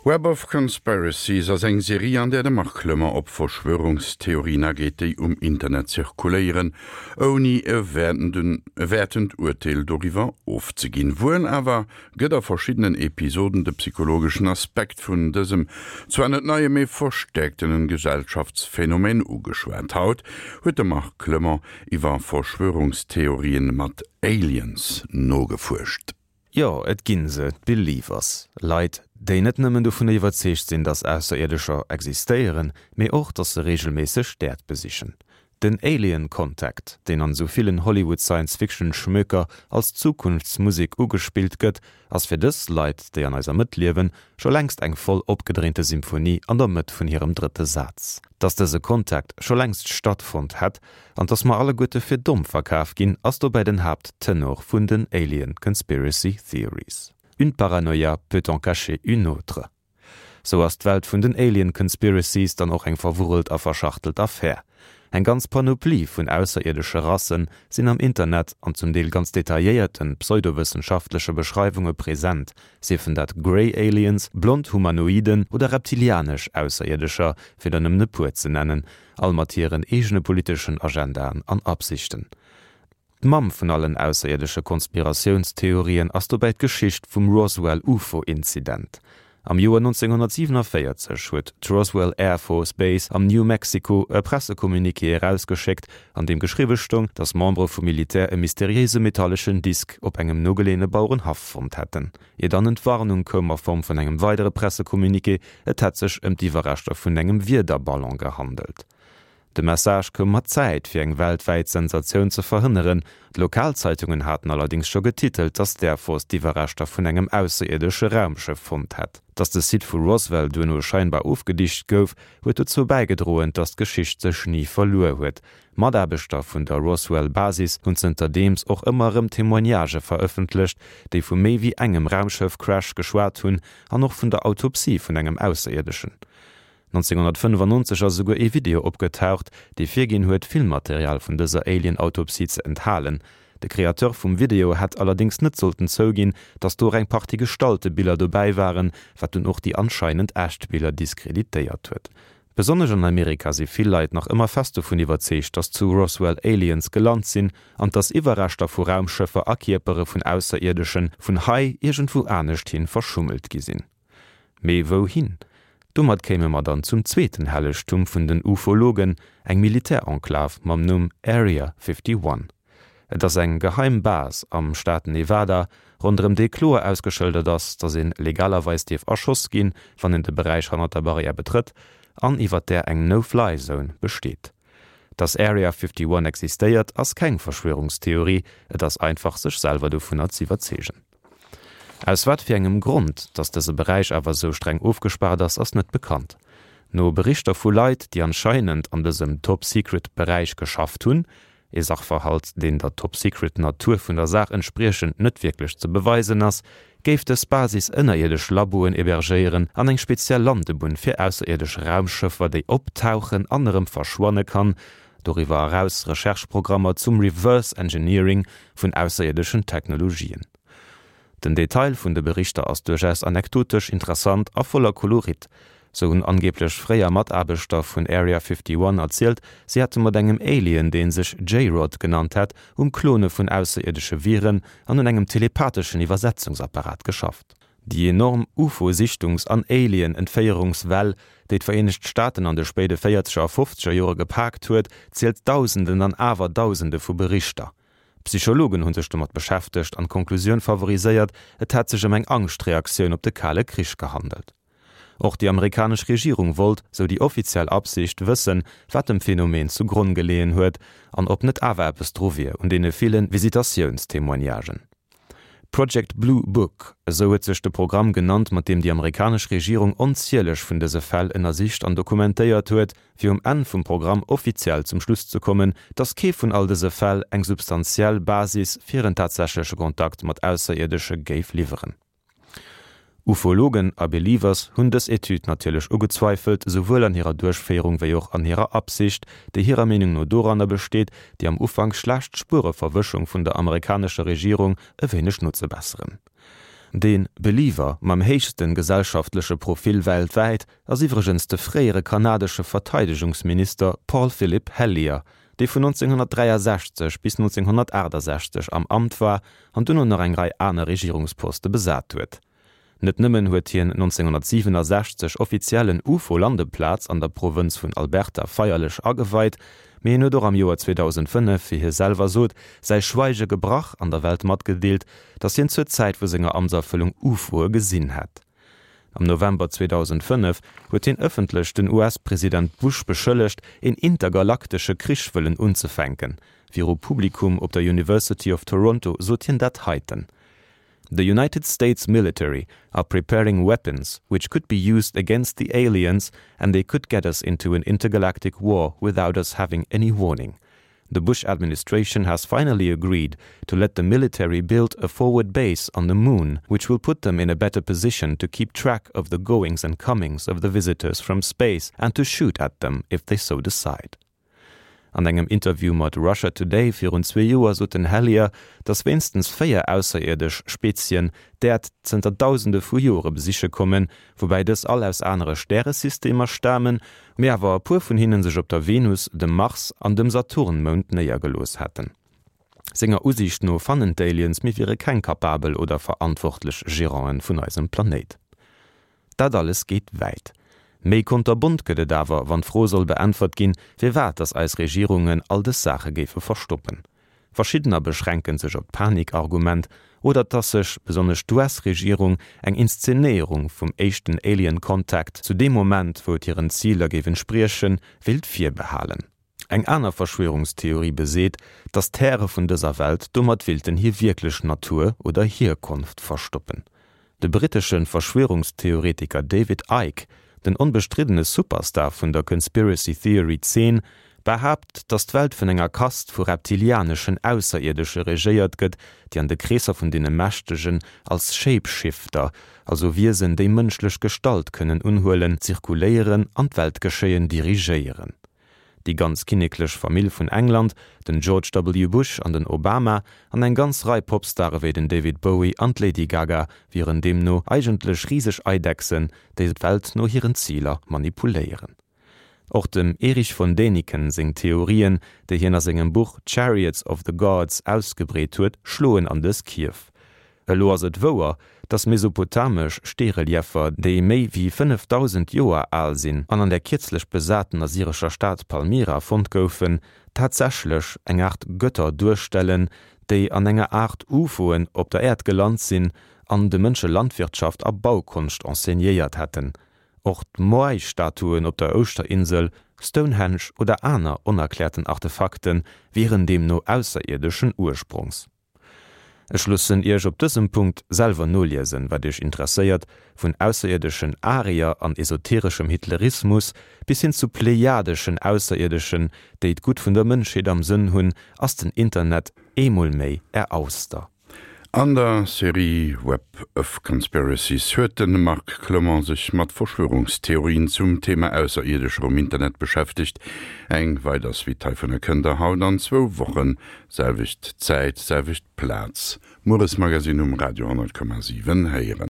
Web of Conspiracies ass eng Serie, an där de Marc Clement op Verschwörungstheorien ageet, déi um Internet zirkuléieren, ouni e wäertend Urteel doriwwer ofzeginn. Wuel awer gëtt a verschiddenen Episoden de psychologeschen Aspekt vun dësem zwar net neie, mee verstäerktenen Gesellschaftsphänomen ugeschwat. Haut huet de Marc Clement iwwer Verschwörungstheorien mat Aliens nogefuerscht. Jo, et ginn se, d'Believers. Leit, déi net nëmmen dovunner iwwerzeegt sinn, dass Ausserierdescher existéieren, mee och, dass se reegelméisseg d'Äerd besichen. Den Alien Contact, deen an esou villen Hollywood Science-Fiction-Schmöker als Zukunftsmusek ugespillt gëtt, ass fir dës Leit, déi an eiser Mëtt liewen, scho längst eng voll opgedréinte Symphonie an der Mëtt vun hirem drëtte Saz. Dass dëse Contact scho längst stattfonnt hätt, an dass mer alleguerte fir domm verkaf ginn, ass dobäi den Haapttenor vun den Alien Conspiracy Theories. Une paranoïa peut en cacher une autre. Sou ass d'Welt vun den Alien Conspiracies dann och eng verwurrelt a verschachtelt Affär. Eng ganz Panoplie vun ausserierdesche Rassen sinn am Internet an zum Deel ganz detailléierten pseudowëssenschaftleche Beschreiwunge present, siefen dat Grey Aliens, blond Humanoiden oder reptilianesch Ausserierdescher, fir der nëmmen e puer ze nennen, all mat hiren eegene politeschen Agendaen an Absichten. D'Mamm vun allen ausserierdesche Konspiratiounstheorien ass dobäi d'Geschicht vum Roswell UFO-Inzident. Am Joer 1947 huet d'Roswell Air Force Base am New Mexico e Pressecommuniqué erausgeschéckt, an deem geschriwwe stoung, datt Membere vum Militär e mysteriéise metalleschen Disk op engem nogeleeëne Bauerenhaff fonnt hätten. Ier dann Entwarnung koum a Form vun engem weidere Pressecommuniqué, et hätt sech ëm d'Iwwerreschter vun engem Wiederballon gehandelt. De Message koum mat Zäit, fir eng weltwäit Sensatioun ze verhënneren. D'Lokalzeitungen haten allerdéngs scho getitelt, datt d'Air Force d'Iwwerreschter vun engem ausserierdesche Raumschëff fonnt hätt. Datt de Site vu Roswell duerno scheinbar ofgedicht gouf, huet dozou bäigedroen, datt d'Geschicht sech ni verluer huet. Mataarbechter vun der Roswell Basis hunn zënterdeems och ëmmer erëm Témoignagë verëffentlecht, déi vu méi wéi engem Raumschëff-Crash geschwat hunn an och vun der Autopsie vun engem Ausserierdëschen. 1995 ass esouguer ee Video opgetaucht, dee virginn huet, Filmmaterial vun dëser Alien-Autopsie ze enthalen. De Createur vum Video hätt allerdéngs net sollten zouginn, datt do och eng Partie gestallte Biller dobäi waren, wat dunn och déi anscheinend echt Biller diskreditéiert huet. Besonnesch an Amerika si vill Leit nach ëmmer fest dovun iwwerzeegt, dass zu Roswell Aliens gelant sinn an dass Iwwerreschter vu Raumschëffer a Kierpere vun Ausserierdesche vun hei iergendwou anescht hin verschummelt gi sinn. Mee wouhin? Domat kéime mer dann zum zweeten Hellegtum vun den Ufologen, eng Militärenklav mam Numm Area 51. Et ass eng geheim Base am Staat Nevada, ronderëm déi kloer ausgeschëldert ass, datt een legalerweis dierf erschoss ginn, wann een de Beräich hannert der Barrière betrëtt, an iwwer där eng No-Fly-Zone besteet. Datt Area 51 existéiert, ass keng Verschwörungstheorie, et ass einfach sech selwer dovunner z'iwwerzeegen. Aus wat fir engem Grond, datt dëse Beräich awer esou streng ofgespaart ass, ass net bekannt. No Berichter vu Leit, déi anscheinend an dësem Top-Secret Beräich geschafft hunn, Ee Sachverhalt, deen der Top-Secret-Natur vun der Saach entspriechend net wierklech ze beweisen ass, géif dës Basis ënnerierdesch Laboen hebergéieren an eng speziell Landebunn fir ausserierdesch Raumschëffer, déi optauchen an erëm verschwanne kann, doriwwer eraus Recherche-Programmer zum Reverse Engineering vun ausserierdeschen Technologien. Den Detail vun de Berichter ass duerchaus anekdotesch, interessant a voller Kolorit. Sou hunn angeeblech fréier Mataarbechter vun Area 51 erzielt, si hätte mat engem Alien, dee sech J-Rod genannt hätt, um Klone vun ausserierdesche Viren an un engem telepatheschen Iwwersetzungsapparat geschafft. Déi enorm UFO-Sichtungs an Alien-Entféierungswell, déi d'Vereenegt Staaten an de spéide véierzeger a fofzeger Jore gepaakt huet, zielt Dausenden an awer Dausende vu Berichter. Psychologen hu sech domat beschäftegt an d'Konklusioun favoriséiert, et hätt sech ëm eng Angschtreaktioun op de Kale Krich gehandelt. Och déi amerikanesch Regierung wollt, sou déi offiziell Absicht, wëssen, wat dem Phänomen zu Gronn geleeën huet an ob net awer eppes dru wier un deene ville Visitatiounstémoignagen. Project Blue Book, esou huet sech de Programm genannt, mat deem déi amerikanesch Regierung onzieleg vun dëse Fäll ënnersicht an dokumentéiert huet, fir um Enn vum Programm offiziell zum Schluss ze kommen, datt kee vun all dëse Fäll eng substantiell Basis fir en tatsächleche Kontakt mat Ausserierdesche géif liwweren. Ufologen a Believers hunn dës Etüd natierlech ugezweifelt, souwuel an hirer Duerchféierung wéi och an hirer Absicht, déi hirer Meenung no doranner besteet, déi am Ufank schlecht Spuereverwëschung vun der amerikanescher Regierung e wéineg nozebesseren. De Believer mam héichste gesellschaftleche Profil weltwäit ass iwwregens de fréiere kanadesche Verteidegungsminister Paul Philip Hellyer, dee vun 1963 bis 1968 am Amt war an duerno nach eng Rei aner Regierungsposte besat huet. Net nëmmen huet hien 1967 offiziell en UFO-Landeplaz an der Provënz vun Alberta feierlech ageweit, mee hien huet och am Joer 2005, wéi hie selwer sot, säi Schweige gebrach an der Welt matgedeelt, datt hien zur Zäit vu senger Amtserfëllung UFOe gesinn hätt. Am November 2005 huet hien ëffentlech den US-President Bush beschëllegt, een intergalaktesche Krich wëllen unzefänken. Viru Publikum op der University of Toronto sot hien dat heiten, The United States military are preparing weapons which could be used against the aliens and they could get us into an intergalactic war without us having any warning. The Bush administration has finally agreed to let the military build a forward base on the moon, which will put them in a better position to keep track of the goings and comings of the visitors from space and to shoot at them if they so decide. An engem Interview mat Russia Today virun zwee Joer sot den Hellyer, datt wéinstens 4 ausserierdesch Spezien d'Äerd zënter Dausende vu Jore besiche kommen, woubäi dës all aus anere Stäresystemer stamen, mee awer e puer vun hinne sech op der Venus, dem Mars an dem Saturnmound néiergelooss hätten. Senger Usiicht no fannen d'Aliens, mir wiere keng kapabel oder verantwortlech Geranten vun eisem Planéit. Dat alles geet wäit. Méi konterbont gëtt et awer, wann d'Fro soll beäntwert ginn, firwat datt eis Regierungen all dës Saache géife verstoppen. Verschiddener beschränke sech op d'Panik-Argument oder datt sech, besonnesch d'US-Regierung, eng Inszenéierung vum éischten Alien Contact zu deem Moment, wou et hiren Ziler géif entspriechen, wéilt virbehalen. Eng aner Verschwörungstheorie beseet, datt d'Häre vun dëser Welt domat willten hir wierklech Natur oder Hierkonft verstoppen. De brittesche Verschwörungstheoretiker David Icke, den onbestriddene Superstar vun der Conspiracy Theory Zeen, behaapt, datt d'Welt vun enger Kast vu reptilianeschen Ausserierdesche regéiert gëtt, déi an de Kreesser vun deene Mächtegen als Shapeshifter, also Wiesen déi mënschlech Gestalt kënnen unhuelen, zirkuléieren an d'Weltgeschéien dirigéieren. Déi ganz kinneklech Famill vun England, den George W. Bush an den Obama an eng ganz Rei Popstare wéi den David Bowie an d'Lady Gaga wieren deemno eigentlech riseg Eidechsen, déi d'Welt no hiren Ziler manipuléieren. Och dem Erich von Däniken seng Theorien, déi hien a sengem Buch Chariots of the Gods ausgebreet huet, schloen an dës Kierf. Elo ass et wouer, dass mesopotamesch Steerelieffer, déi méi wéi 5.000 Joer al sinn an an der kierzlech besaten assyrescher Stad Palmyra fonnt goufen, tatsächlech eng Aart Götter duerstellen, déi an enger Aart UFOen op der Äerd gelant sinn an de Mënsche Landwirtschaft a Baukonscht enseignéiert hätten. Och d'Moai-Statuen op der Ouschterinsel, Stonehenge oder aner onerkläerten Artefakte wieren deemno ausserierdeschen Ursprongs. Ech loossen Iech op dësem Punkt selwer noliesen, wat Iech interesséiert, vun ausserierdeschen Arier an esotereschem Hitlerismus bis hin zu plejadeschen Ausserierdeschen, déi d'Gutt vun der Mënschheet am Sënn hunn, ass den Internet eemol méi Är Auster. An der Serie Web of Conspiracies huet de Marc Clement sech mat Verschwörungstheorien zum Thema Ausserierdescher um Internet beschäftegt. Eng weider Suite heivunner kënnt der haut an zwou Wochen Selwecht Zäit, selwecht Plaz, Mueresmagazin um Radio 10,7 héieren.